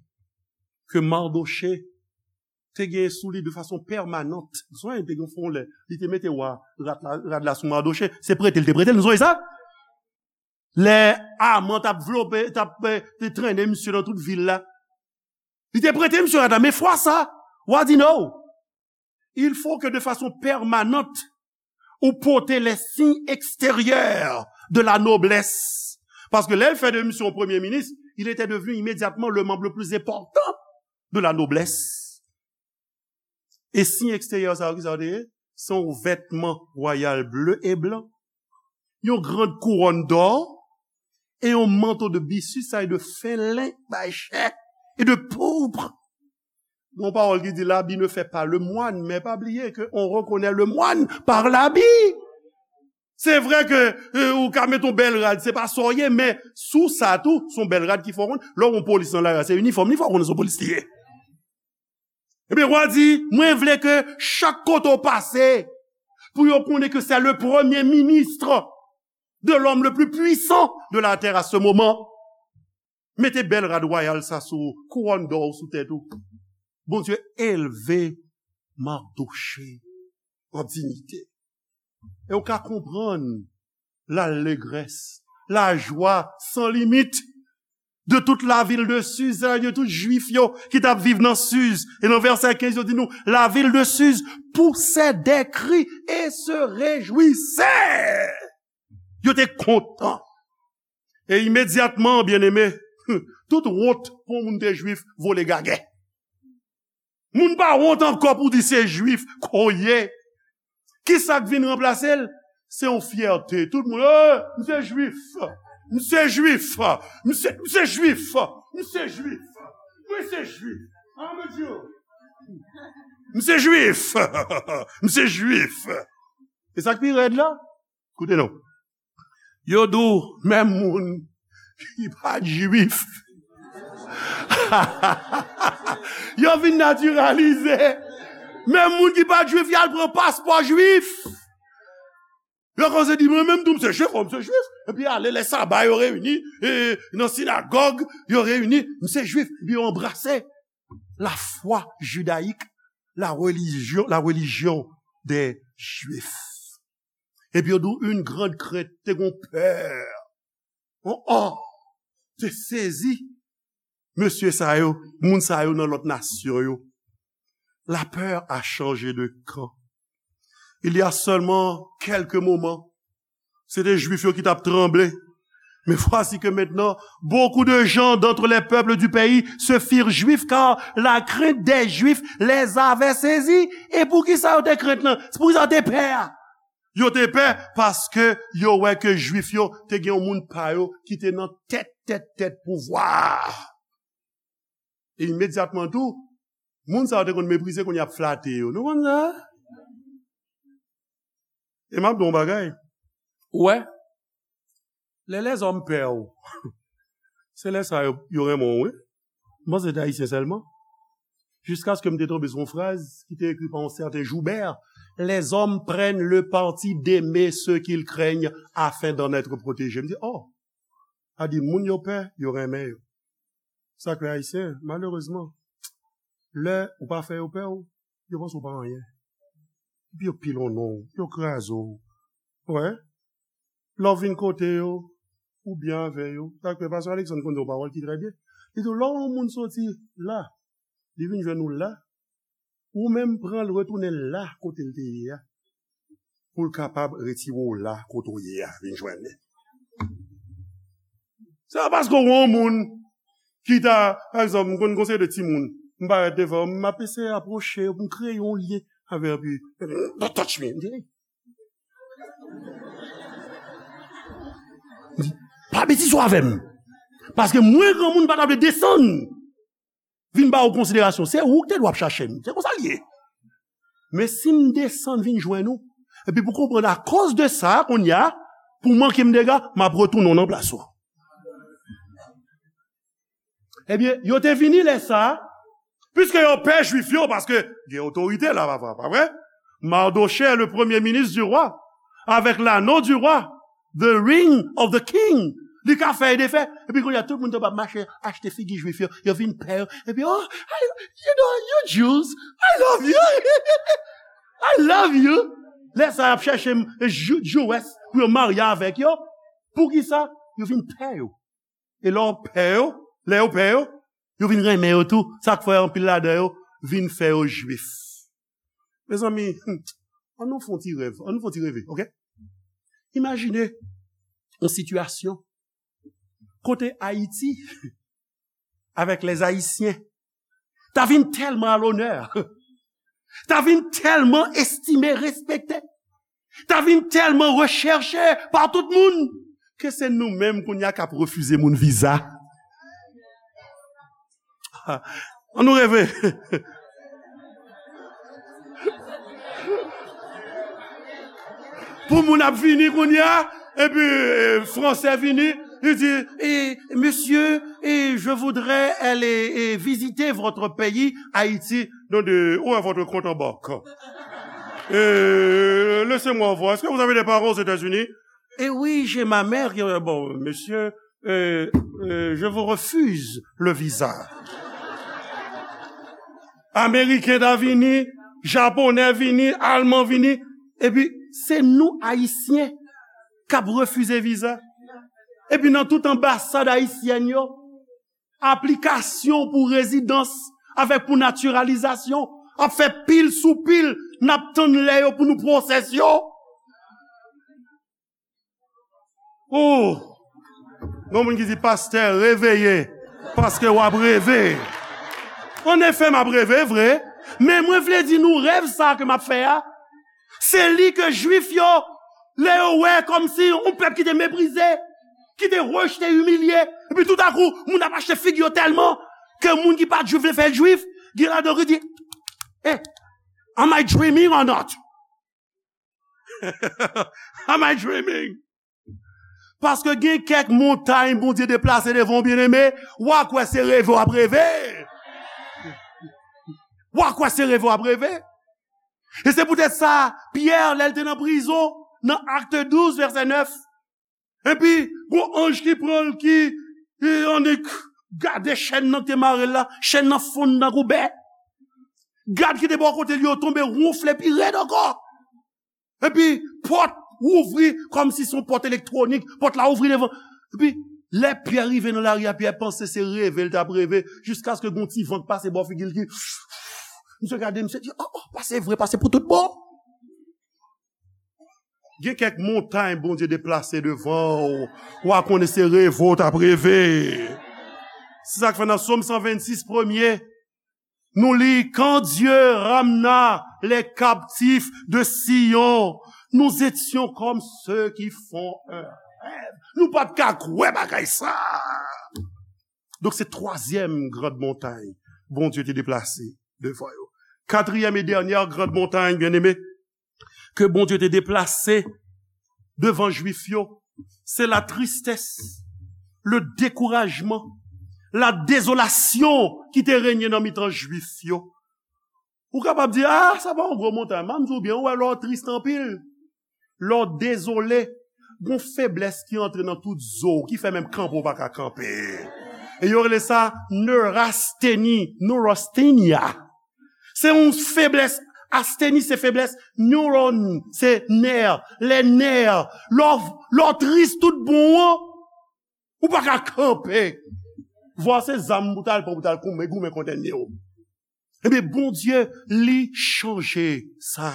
ke Mardochée te gen sou li de fason pèmanant. Sonje, te gen fon lè li te mete wa rad la, rad la sou Mardochée. Se prete l te prete l, nou sonje sa? Lè Aman t ap vlope, t ap, eh, te trennen misye nan tout vil la, li te prete misye rad la, men fwa sa, wa di no. Il faut que de façon permanente, ou pote les signes extérieurs de la noblesse. Paske lè l fè de misye premye minis, il était devenu immédiatement le membre le plus important de la noblesse. E siy eksteryè sa yo, ki sa yo te ye? Se yon vètman wayal ble e blan, yon grand kouwòn dò, e yon manto de bisis, sa e de fen len bay chè, e de pourpre. Gon pawòl ki di, l'habit ne fait pas le moine, men pa bliye ke on reconnaît le moine par l'habit. Se vre ke, euh, ou ka met yon bèl rad, se pa sa w ye, men sou sa tou, se yon bèl rad ki fè w konn. Lè w yon polis nan lari a, se inifòm li fè w konn se yon polis li ye. Ebyen, wa di, mwen vle ke chak kote w pase, pou yo konnen ke c'est le premier ministre de l'homme le plus puissant de la terre à ce moment. Mete bèl rad wayal sa sou ou, kouwòn dò sou tèt ou. Bondye elve Mardochée an dinyite. E w ka konprann lalegrès, lajwa san limit de toute la ville de Suse, de tout Jwif yo ki t ap viv nan Suse. E nan vèsè kenz, yo di nou, la ville de Suse poussait des cris et se réjouissait. Yo te kontan. E imedyatman, byeneme, tout wont pou moun te jwif vole gagè. Moun pa wont ankò pou di se jwif ke w ye. Kisa k vin ranplase l? Se yon fyète. Tout moun, "Eh, m se jwif. M se jwif. M se, m se jwif. M se jwif. Mwen se jwif. Ah, mon Dieu. M se jwif. M se jwif." E sa k pi rèd la? Koute non. Yo di w, menm moun ki pa t jwif, yo vin natiralize. Menm moun ki pa t jwif, y al pran paspò jwif. Yo kòmanse di, "Mwen menm tou, m se jwif, o, m se jwif." Epi ale, lè saba, yo reyini, e, nan sinagòg, yo reyini, "M se jwif." Epi yo anbrase lafwa jidayik, la religion, la religion des Juifs. Epi yo di w, une grande crainte, te gon pè. Oh, oh, te sezi. mesye sa yo, moun sa yo nan lòt nasyon yo. La peur a changé de camp. Il y a seulement quelques moments, se te Jwif yo ki t ap tranble. Mais voici que maintenant, beaucoup de gens d'entre les peuples du pays se firent juifs, car la crainte des Juifs les avait saisis. E poukisa yo te krent lan? Se poukisa yo te pè a? Yo te pè paske yo wè ke Jwif yo te gen yon moun pa yo ki te nan tèt, tèt, tèt pouvwa a. E imedyatman tou, moun sa yo te konn meprize, kounye a y ap flate yo. Nou konn sa? E m ap di w yon bagay. Ou wè, lè lèzòm pè w, se lè sa yo, yo renmen w, wi. M panse se te Ayisyen sèlman. Jiskaske m te tonbe sou yon fraz ki te ekri pa yon sèten Joubert: Les hommes prennent le parti d'aimer ceux qu'ils craignent afin d'en être protégés. M di, oh, sa di moun yo pè, yo renmen yo. Sa k fè Ayisyen, malerezman, lè ou pa fè yo pè w, yo panse w pa anyen. Epi yo pilonn w, yo kraze w. Wè. Lè w vin kote yo, ou byen avè yo. Sa k fè pastè Alexandre konn di yon pawòl ki trè byen. Li di w, lè yon moun soti la, li vin jwenn ou la, ou menm pran l retounen l la kote l te ye a, pou l kapab retire w la kote w ye a, vin jwenn li. Se pa paske w wè yon moun ki ta, pa egzanp, m konn konseye de timoun, m parèt devan, m ap eseye apwoche yo pou m kreye yon lyen avè yo, epi, "Don't touch me." M di, "Hey." M di, "Pa betize w avè m." Paske mwen, granmoun, m pa ta vle desann vin ba ou konsiderasyon. Se ou ki te dwe ap chache m. Se konsa l ye. Men si m desann vin jwenn ou, epi pou konprann akoz de sa, kounye a, pou manke m dega, m ap retounen w nan plas ou. Ebyen, yo te vini lè sa a, piske yo pè Jwif yo, paske gen otorite la, pa, pa, pa vre? Mardochée, le premier ministre du roi, avec l'anneau du roi, the ring of the king. Li ka fè e defè. Epi kounye a, tout moun t ap mache achte figi Jwif yo. Yo vin pè yo. Epi, "Oh, I, you know, you Jews, I love you. I love you." Lè sa, y ap chèche m, Ju-, Jewess pou yo marye avèk yo. Poukisa? Yo vin pè yo. E lè w pè yo, lè yo pè yo, yo vin renmen yo tou. Sa k fè anpil ladan yo vin fè yo Jwif. Mezanmi, hmm, ann nou fè yon ti rèv, ann nou fè yon ti reve, oke? Imajine yon sitiyasyon kote Ayiti, avèk lèzayisyen, ta vin tèlman a lonè, ta vin tèlman estime, respekte, ta vin tèlman rechèche pa tout moun, ke se nou menm kounye a k ap refize moun viza. Ann nou reve. Pou moun ap vini kounye a, epi, e, Fransè vini, li di, e, "Monsieur, e, je voudrais aller, e, visiter votre pays, Haïti." Non, de, "Où est votre compte en banque? E, laissez-moi voir. Est-ce que vous avez des parents aux États-Unis?" "Eh oui, j'ai ma mère qui, euh, bon, monsieur, euh, euh, je vous refuse le visa." Ameriken ta vini, Japonè vini, Alman vini, epi se nou Ayisyen k ap refize viza. Epi nan tout anbasad ayisyèn yo, aplikasyon pou rezidans avèk pou natiralizasyon ap fè pil sou pil, n ap tann lè yo pou nou pwosès yo. Oh! Gon moun ki di, "Pastè, reveye, paske w ap reve." Anefè, m ap reve, vre, men mwen vle di nou, rèv sa a ke m ap fè a, se li ke Jwif yo, lè yo wè kòmsi yon pèp ki te meprize, ki te rejte, imilye, epi toutakou, moun ap achte figi yo tèlman ke moun ki pa t Jwif vle fè l Jwif, gen ladan yo ki di, "Eh, am I dreaming or not?" Am I dreaming? Paske gen kèk montay Bondye deplase devan w, byeneme, w a kwè se reve w ap reve. W a kwè se reve w ap reve. E se poutèt sa, Pyè, lè l te nan prizon, nan Akte douz, vèsè nèf, epi gon anj ki pran l, ki, e, annik gade chèn nan ki te mare l la, chèn nan fonn tankou bè. Gad ki te bò kote l yo tonbe wonfle pi rèd ankò. Epi pòt ouvri kòmsi se yon pòt elektwonik, pòt la ouvri devan. Epi Lè Pyè rive nan lari a, Pyè panse se reve l t ap reve, jiskaske gon ti van k pase bò figi l ki, misye gade, misye di, "Oh, oh, pase vre, pase pou tout bon." Gen kèk montay Bondye deplase devan w, w a konnen se reve w t ap reve. Se sa k fè nan Sòm san vennsis, premye, nou li, "Quand Dieu ramena les captifs de Sion, nous étions comme ceux qui font un rêve." Nou pa t ka kwè bagay sa. Donk, se twazyèm grand montay Bondye te deplase devan yo. Katriyèm e dènyè grand montay, byeneme, ke Bondye te deplase devan Jwif yo, se la tristès, le dekourajman, la dezolasyon ki te renye nan mitan Jwif yo. Ou kapab di, "Ah, sa pa yon gwo montay." M ap di w byen, ou wè lè w tris anpil, lè w dezole, gon feblès ki antre nan tout zo w, ki fè menm kanpe w pa ka kanpe. E yo rele sa neurasteni, neurasthenia. Se yon feblès, asteni se feblès, neuron se nè, lè nè. Lè w, lè w tris tout bon an, ou pa ka kanpe. Vwa se zam pou t al pran, pou t al goumen, goumen kont ènmi w. Ebyen, Bondye, li chanje sa.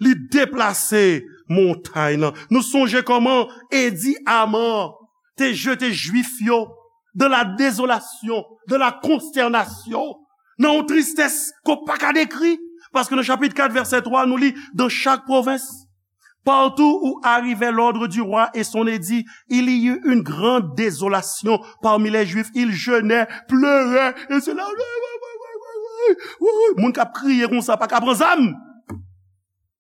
Li deplase montay lan. Nou sonje kòman Edi Aman te jete Jwif yo dans la désolation, dans la consternation, nan yon tristès ke w pa ka dekri. Paske nan chapit kat, vèsè twa, nou li, dans chaque province, partout où arrivait l'ordre du roi et son édit, il y eut une grande désolation parmi les Juifs. Ils jeûnaient, pleuraient, et cela. Moun k ap kriye konsa, pa ka pran zam.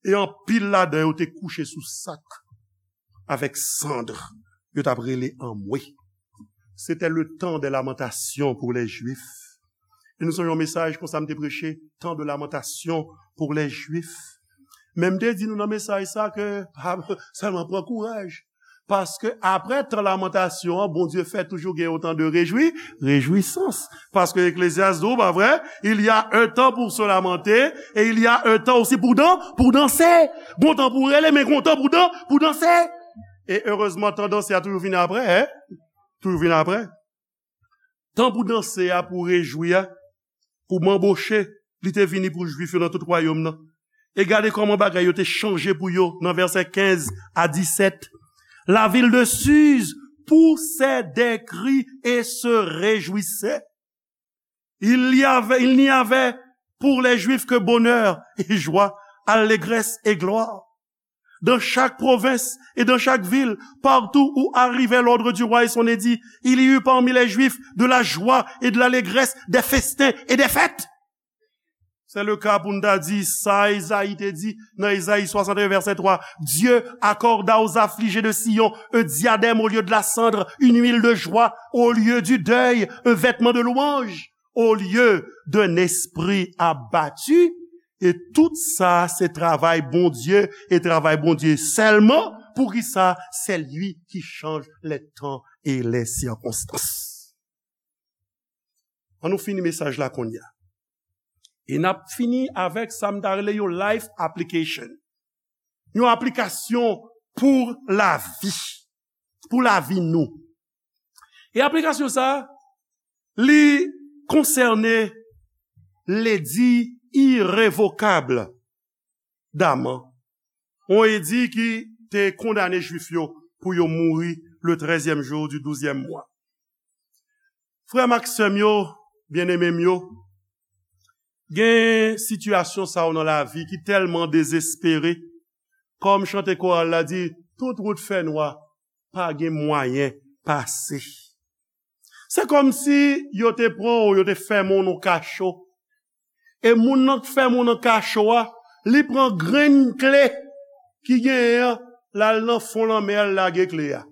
E anpil ladan yo te kouche sou sak avèk sand. Yo t ap rele anmwe. C'était le temps des lamentations pour les Juifs. E nou sonje yon mesaj konsa m te preche, temps de lamentation pour les Juifs. Men m te di nou nan mesaj sa ke, pa sèlman pran kouraj. Paske apre tan lamantasyon an, Bondye fè toujou gen yon tan de rejwi, rejwisans. Paske Eklezyas di w, pa vre, il y a un temps pour se lamenter et il y a un temps aussi pour dan-, pour danser. Gon tan pou rele, men gon tan pou dan-, pou danse. E erezman, tan danse a toujou vini apre, en? Toujou vini apre. Tan pou danse a, pou rejwi a, pou manboche, li te vini pou Jwif yo nan tout wayòm nan. E gade kòman bagay yo te chanje pou yo nan vèsè kenz a disèt. La ville de Suse poussait des cris et se réjouissait. Il y avait, il n'y avait pour les Juifs que bonheur et joie, allégresse et gloire. Dans chaque province et dans chaque ville, partout où arrivait l'ordre du roi et son édit, il y eut parmi les Juifs de la joie et de l'allégresse, des festins et des fêtes. Se le ka pou n ta di sa Ezayi te di nan Ezayi swasannteyen, vèsè twa. Dieu accorda aux affligés de Sion un diadème au lieu de la cendre, une huile de joie au lieu du deuil, un vêtement de louange au lieu d'un esprit abattu. E tout sa, se travay Bondye, e travay Bondye sèlman. Poukisa? C'est lui qui change les temps et les circonstances. An nou fini mesaj la kounye a. E n ap fini avèk sa m ta rele yon life application. Yon aplikasyon pou lavi. Pou lavi nou. E aplikasyon sa, li konsène ledi irevokab d'Aman. Yon edi ki te kondane Jwif yo pou yo mouri le trèzyèm jou du douzyèm mwa. Frè m ak sè m yo, byeneme m yo, gen sitiyasyon sa yo nan lavi ki tèlman dezespere, kòm chante koral la di, tout wout fè nwa, pa gen mwayen pase. Se kòmsi yo te pran w, yo te fèmen w nan kacho. E moun nan k fèmen w nan kacho a, li pran grenn kle ki genyen an, l al nan fon lanmè a, l lage kle a.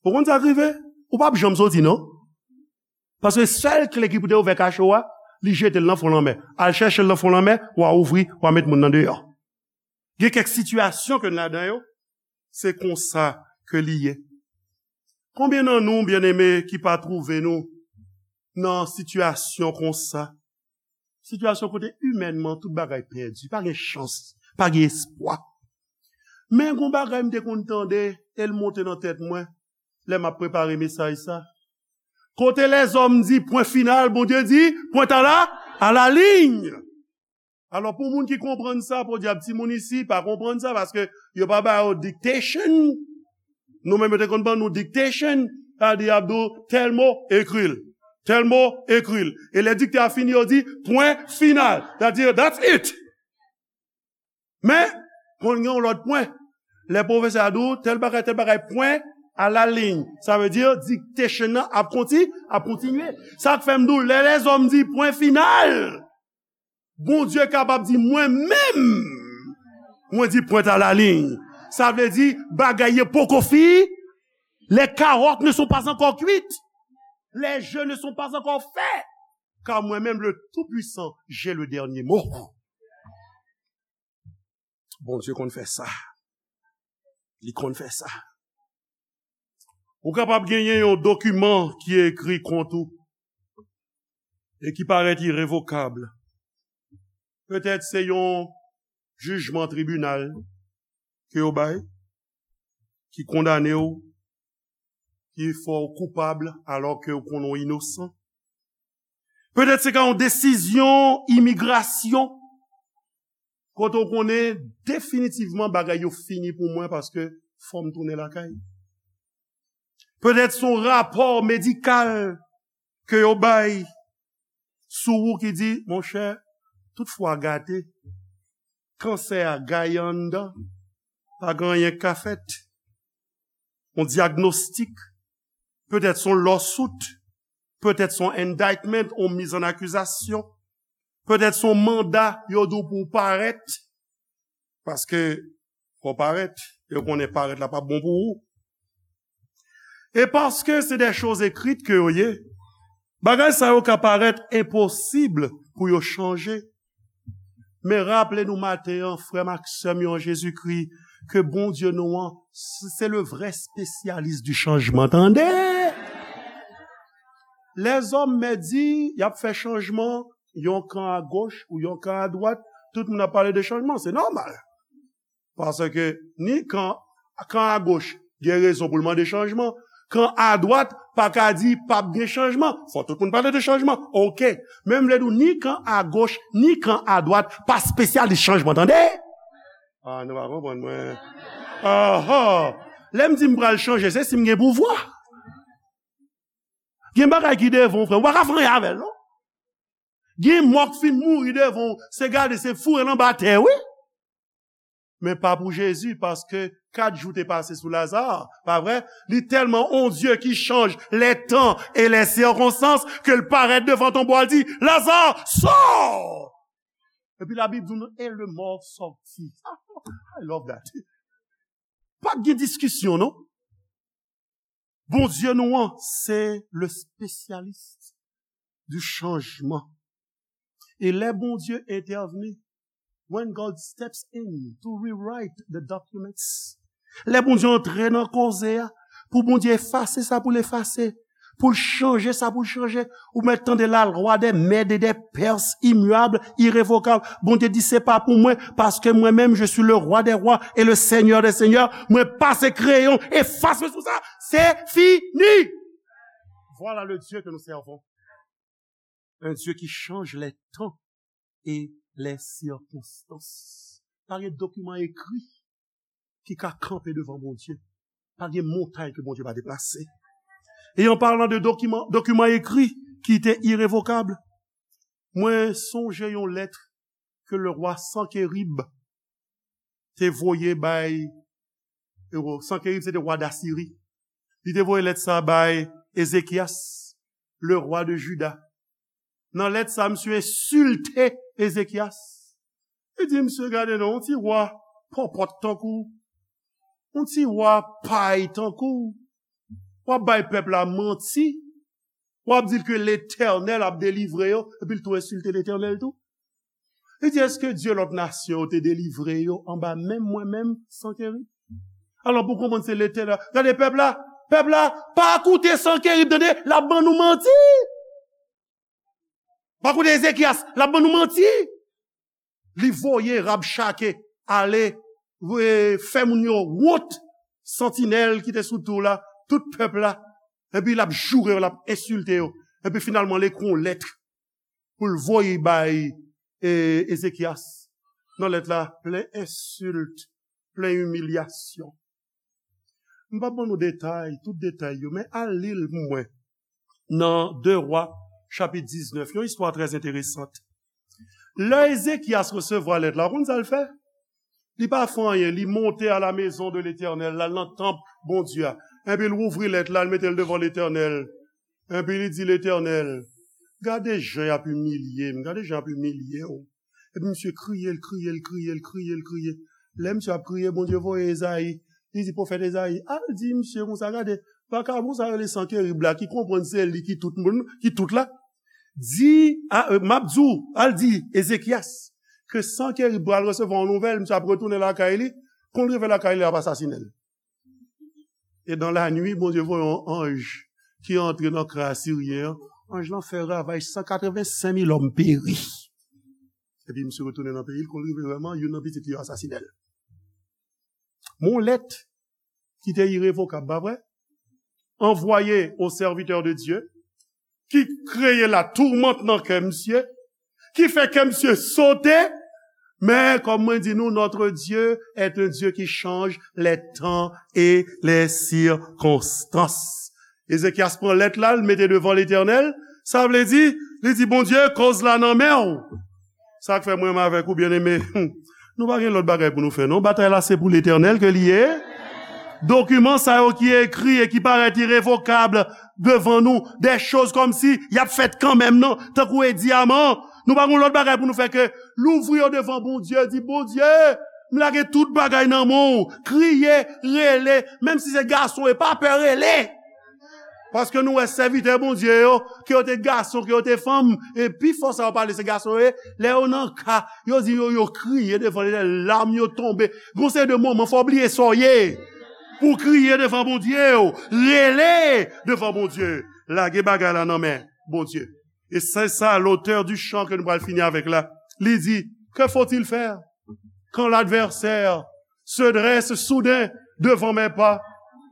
Ou konn sa k rive? Ou p ap janm soti, non. Paske sèl kle ki pou te ouvè kacho a, li jete l nan fon lanmè. Al chèche l nan fon lanmè, w a ouvri, w a met moun nan deyò. Gen kèk sitiyasyon ke n ladan yo, se konsa ke li ye. Konbyen nan nou, byeneme, ki pa twouve nou nan sitiyasyon konsa? Sitiyasyon kote imènman tout bagay pèdi, pa gen chans, pa gen espwa. Men gon bagay m te konn tande, e l monte nan tèt mwen. lè m ap prepare mesaj sa. Kote lèzòm di pwen final, Bondye di pwent a la, a la liy. Alò, pou moun ki konprann sa, podyab, timoun isi pa konprann sa, paske yo pa ba yo dictation. Nou menm, yo te konn ban nou dictation, sa di y ap di w tèl mo, ekri l. Tèl mo, ekri l. E lè diktè a fini, yo di pwen final. Sa di, that's it. Men, konn gen yon lòt pwen. Lè pwofesè a di w, tèl bagay, tèl bagay, pwen a la liy. Sa vle di, dictation nan ap konti-, ap kontinye. Sa k fè m di w, lè lèzòm di pwen final, Bondye kapab di, mwen menm, mwen di pwent a la liy. Sa vle di, bagay yo poko fini. Les carottes ne sont pas encore cuites. Les jeux ne sont pas encore faits. Car moi-même, le Tout-Puissant, j'ai le dernier mot. Bondye konn fè sa. Li konn fè sa. Ou kapab genyen yon dokiman ki ekri kont ou e ki parèt irevokab. Petèt se yon jijman tribinal ke yo bay, ki kondane w, ki fè w koupab alò ke w konnen w inosan. Petèt se ka yon desizyon imigrasyon, kote w konnen definitivman bagay yo fini pou mwen paske fò m tounen lakay. Petèt se yon rapò medikal ke yo bay sou ou ki di, monchè, tout fwa gate, kansè a gaye anndan, pa gen anyen k ka fèt. Yon dyagnostik, petèt se yon lawsuit, petèt se yon indictment, yon miz an akizasyon, petèt se yon manda, yo di w pou w parèt, paske fò w parèt, yo konnen parèt la p ap bon pou ou. E paske se de choz ekrit ke yo ye, bagay sa yo ka parèt enposib pou yo chanje. Men raple nou maten an, frè m ak sè m yo an Jezikri, ke Bondye nou an, se le vrè spesyalis di chanjman, tande! Lèzòm mèt di, y ap fè chanjman, yon kan a goch ou yon kan a dwat, tout moun ap pale de chanjman, se nòmal. Paske ni kan, kan a goch gen rezon pou l mande chanjman, kan a dwat pa ka di p ap gen chanjman. Fò tout moun pale de chanjman. Oke. Men m vle di w, ni kan a goch, ni kan a dwat pa spesyalis chanjman, tande? Ah, nou pa konprann mwen. Aha. Lè m di m pral chanje, se si m gen pouvwa. Gen bagay ki devan w, frè, ou pa ka fè anyen avè l, non. Gen mò k fin mouri devan w, se gade, se foure l anba tè, wi. Men pa pou Jezi, paske kat jou te pase sou Laza, pa vre? Li tèlman on Dye ki chanj les temps et les circonstances ke l parèt devan tonbo a, l di, Laza, sò! Epi Labib di nou, et le mort sortit. I love that. Pa gen diskisyon, non. Bondye nou an, se le spesyalis di chanjman. E lè Bondye entèvni, when God steps in to rewrite the documents, lè Bondye antre nan koze a, pou Bondye efase sa pou l efase, pou l chanje sa pou l chanje, ou mèt tande la loi des Mèdes et des Perses, immuable, irrévocable. Bondye di, se pa pou mwen, paske mwen menm, je suis le roi des rois et le seigneur des seigneurs. Mwen pase kreyon, efase sou sa, se fini. Voilà le Dieu que nous servons. Un Dieu qui change les temps et les circonstances. Pa gen dokiman ekri ki ka kanpe devan Bondye. Pa gen montay ke Bondye pa deplase. E an palan de dokiman, dokiman ekri ki te irevokab, mwen sonje yon lèt ke le rwa Sankerib te voye bay, e, Sankerib se te rwa Dasiri. Li te voye lèt sa bay Ezekyas, le rwa de Jida. Nan lèt sa, misye ensilte Ezekyas. Li di, misye, gade non, yon ti rwa pòpòt tankou w, yon ti rwa pay tankou w, w ap bay pèp la manti, w ap di l ke Letènèl ap delivre yo, epi l tou ensilte Letènèl tou. Li di, èske dye lòt nasyon yo te delivre yo anba men mwen menm, Sankerib? Alò, pou konprann se Letènèl, gade pèp la, pèp la, pa koute Sankerib, tande, l ap ban nou manti. Pa koute Ezekyas, l ap ban nou manti. Li voye Rabchake ale, e, fè moun yo wont. Santinèl ki te sou tou la tout pèp la, epi l ap joure yo, l ap ensilte yo, epi finalman l ekri yon lèt pou l voye bay e, Ezekyas. Nan lèt la, plen ensilt, plen imilyasyon. M p ap ban nou detay, tout detay yo, men al li l pou mwen. Nan de Wa, chapit diznèf, yon istwa trè enteresan. Lè Ezekyas resevwa lèt la, ou konn sa l fè? Li pa fè anyen, li monte à la maison de l'Éternel, l al nan tanp Bondye a. Epi l ouvri lèt la, l mete l devan Letènèl. Epi li di Letènèl, gade jan y ap imilye m, gade jan y ap imilye w. Epi misye kriye, l kriye, l kriye, l kriye, l kriye. Lè misye ap kriye, Bondye voye Ezayi. Li di pwofèt Ezayi, al di misye konsa, gade, vakabon sa rele Sankerib la, ki konprann se li ki tout moun, ki tout la. Di, a, e, m ap di w, al di Ezekyas, ke Sankerib pral resevwa yon nouvèl, misye ap retounen lakay li, kon l rive lakay li, l ap asasinen l. E dans la nuit, Bondye voye yon anj ki antre nan kan asiryen an. Anj lan fè ravaj, san katreven senk mil òm peri. Epi misye retounen nan peyi l, kon l rive vrèman, youn nan pitit li yo asasinen l. Yon lèt ki te irevokab, pa vre? Anvoye o sèvitè de Dye, ki kreye latoumant nan kè misye, ki fè kè misye sote, men kòm mwen di nou, notre Dieu est un Dieu qui change les temps et les circonstances. Ezekyas pran lèt la, l mete devan Letènèl, sa vle di, li di, Bondye, koz la nan men w. Sa k fè mwen menm avèk ou, byeneme, nou pa gen lòt bagay pou nou fè, non. Batay la, se pou Letènèl ke li ye. Dokiman sa yo ki ekri e ki parèt irevokab devan nou, de choz kòmsi y ap fèt kanmenm, non, tankou Edi Aman. Nou pa gen lòt bagay pou nou fè ke louvri yo devan Bondye, di, Bondye, m lage tout bagay nan men w, kriye, rele, menm si se gason, e pa pè rele. Paske nou wè sèvitè Bondye yo, ke yo te gason, ke yo te fanm, e pifò sa yo pale se gason yo ye, lè yo nan ka, yo di yo, yo kriye devan Letènèl, lam yo tonbe. Gon seri de moman, fò w bliye sa w ye. Pou w kriye devan Bondye w, rele devan Bondye. Lage bagay la nan men Bondye. E se sa, l'auteur du chant ke nou pral fini avèk la. Li di, que faut-il faire quand l'adversaire se dresse soudain devant mes pas,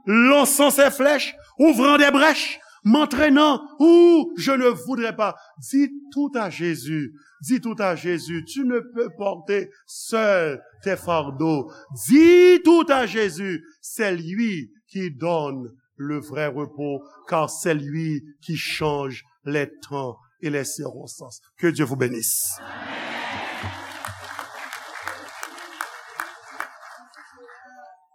lançant ses flèches, ouvrant des brèches, m'entraînant où je ne voudrais pas? Dis tout à Jésus, dis tout à Jésus, tu ne peux porter seul tes fardeaux. Dis tout à Jésus, c'est lui qui donne le vrai repos, car c'est lui qui change les temps et les circonstances. Que Dieu vous bénisse.